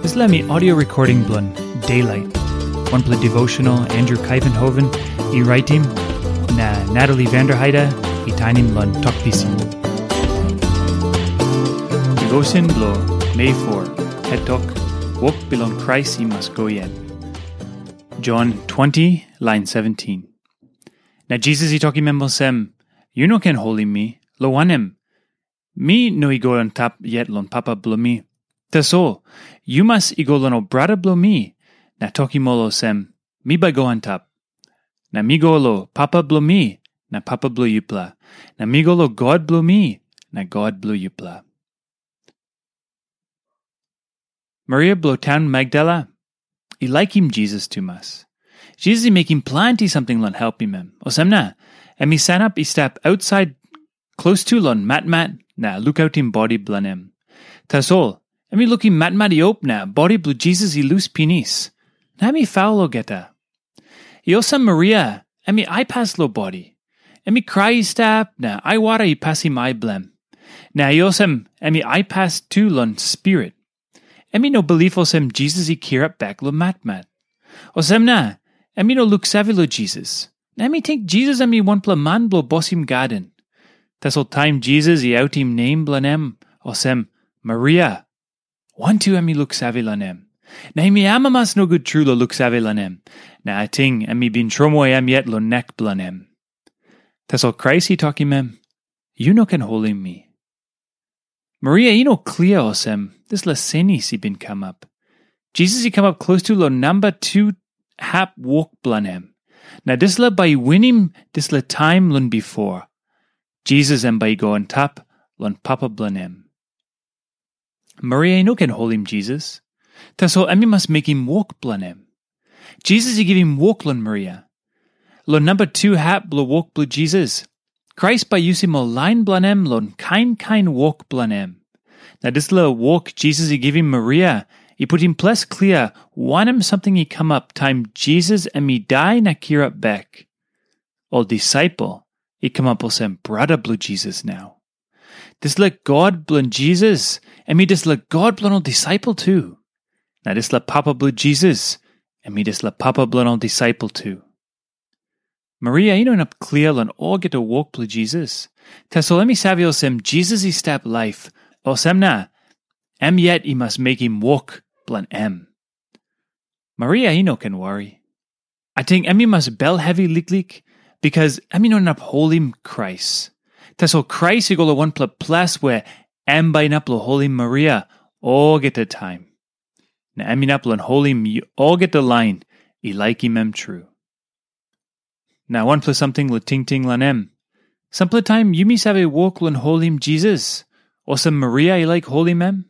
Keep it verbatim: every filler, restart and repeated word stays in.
Dispela mi audio recording bilong Daylight, wanpela devotional Andrew Kaivenhoven i raitim, na Natalie Vanderheide i tainim long Tok Pisin. Devotion bilong Mei four, het tok, Wok bilong Krais i mas go yet. John twenty, lain seventeen. Na Jisas i tokim em olsem, "Yu no ken holim mi, lo wanem, mi no i go antap yet long Papa bilong mi. Tasol, yu mas i go long ol brata bilong mi, na tokim ol olsem, 'Mi bai go antap. Na mi go long Papa bilong mi, na Papa bilong yupela. Na mi go long God bilong mi, na God bilong yupela.'" Maria bilong taun Magdala i laikim Jisas tumas. Jisas i mekim planti samting long helpim em. Olsem na, em i sanap i stap ausait klostu long matmat na lukautim bodi bilong em. Tasol, em i lukim matmat i op na bodi bilong Jisas i lus pinis. Na em i faul olgeta. I olsem Maria, em i aipas long bodi. Em i krai i stap, na aiwara i pasim ai bilong em. Na i olsem, em i aipas tu long spirit. Em i no bilip olsem Jisas i kirap bek long matmat. Olsem na, em i no luksave long Jisas. Na em i ting Jisas em i wanpela man bilong bosim gaden. Tasol taim Jisas i autim nem bilong em, olsem, Maria, wantu em i luksave long em. Na em i amamas nogut tru long luksave long em. Na ating em i bin tromoi em yet long nek bilong em. Tasol Krais i tokim em, "Yu no ken holim mi." Maria i no klia olsem, dispela senis i bin kamap. Jisas i kamap klostu long namba tu hap wok bilong em. Na dispela bai i winim dispela taim long bipo. Jisas em bai i go antap long Papa bilong em. Maria i no ken holim Jisas. Tasol em i mas mekim wok bilong em. Jisas i givim wok long Maria. Long namba tu hap bilong wok bilong Jisas, Krais bai yusim ol lain bilong em long kain kain wok bilong em. Na dispela wok Jisas i givim Maria i putim ples klia wanem samting i kamap taim Jisas em i dai na kirap bek. Ol disaipel i kamap olsem brata bilong Jisas nau. Dispela God bilong Jisas, em i dispela God bilong ol disaipel tu. Na dispela Papa bilong Jisas, em i dispela Papa bilong ol disaipel tu. Maria i no inap klia long olgeta wok bilong Jisas. Tasol em i save olsem Jisas i stap laip, olsem na, em yet i mas mekim wok bilong em. Maria i no ken wari. Ating em i mas bel hevi liklik, bikas em i no inap holim Krais. Tasol Krais i go long wanpela ples we em bai inap long holim Maria olgeta taim. Na em inap long holim olgeta lain i laikim em tru. Na wanpela samting long tingting long em. Sampela taim yumi save wok long holim Jisas, olsem Maria i laik holim em?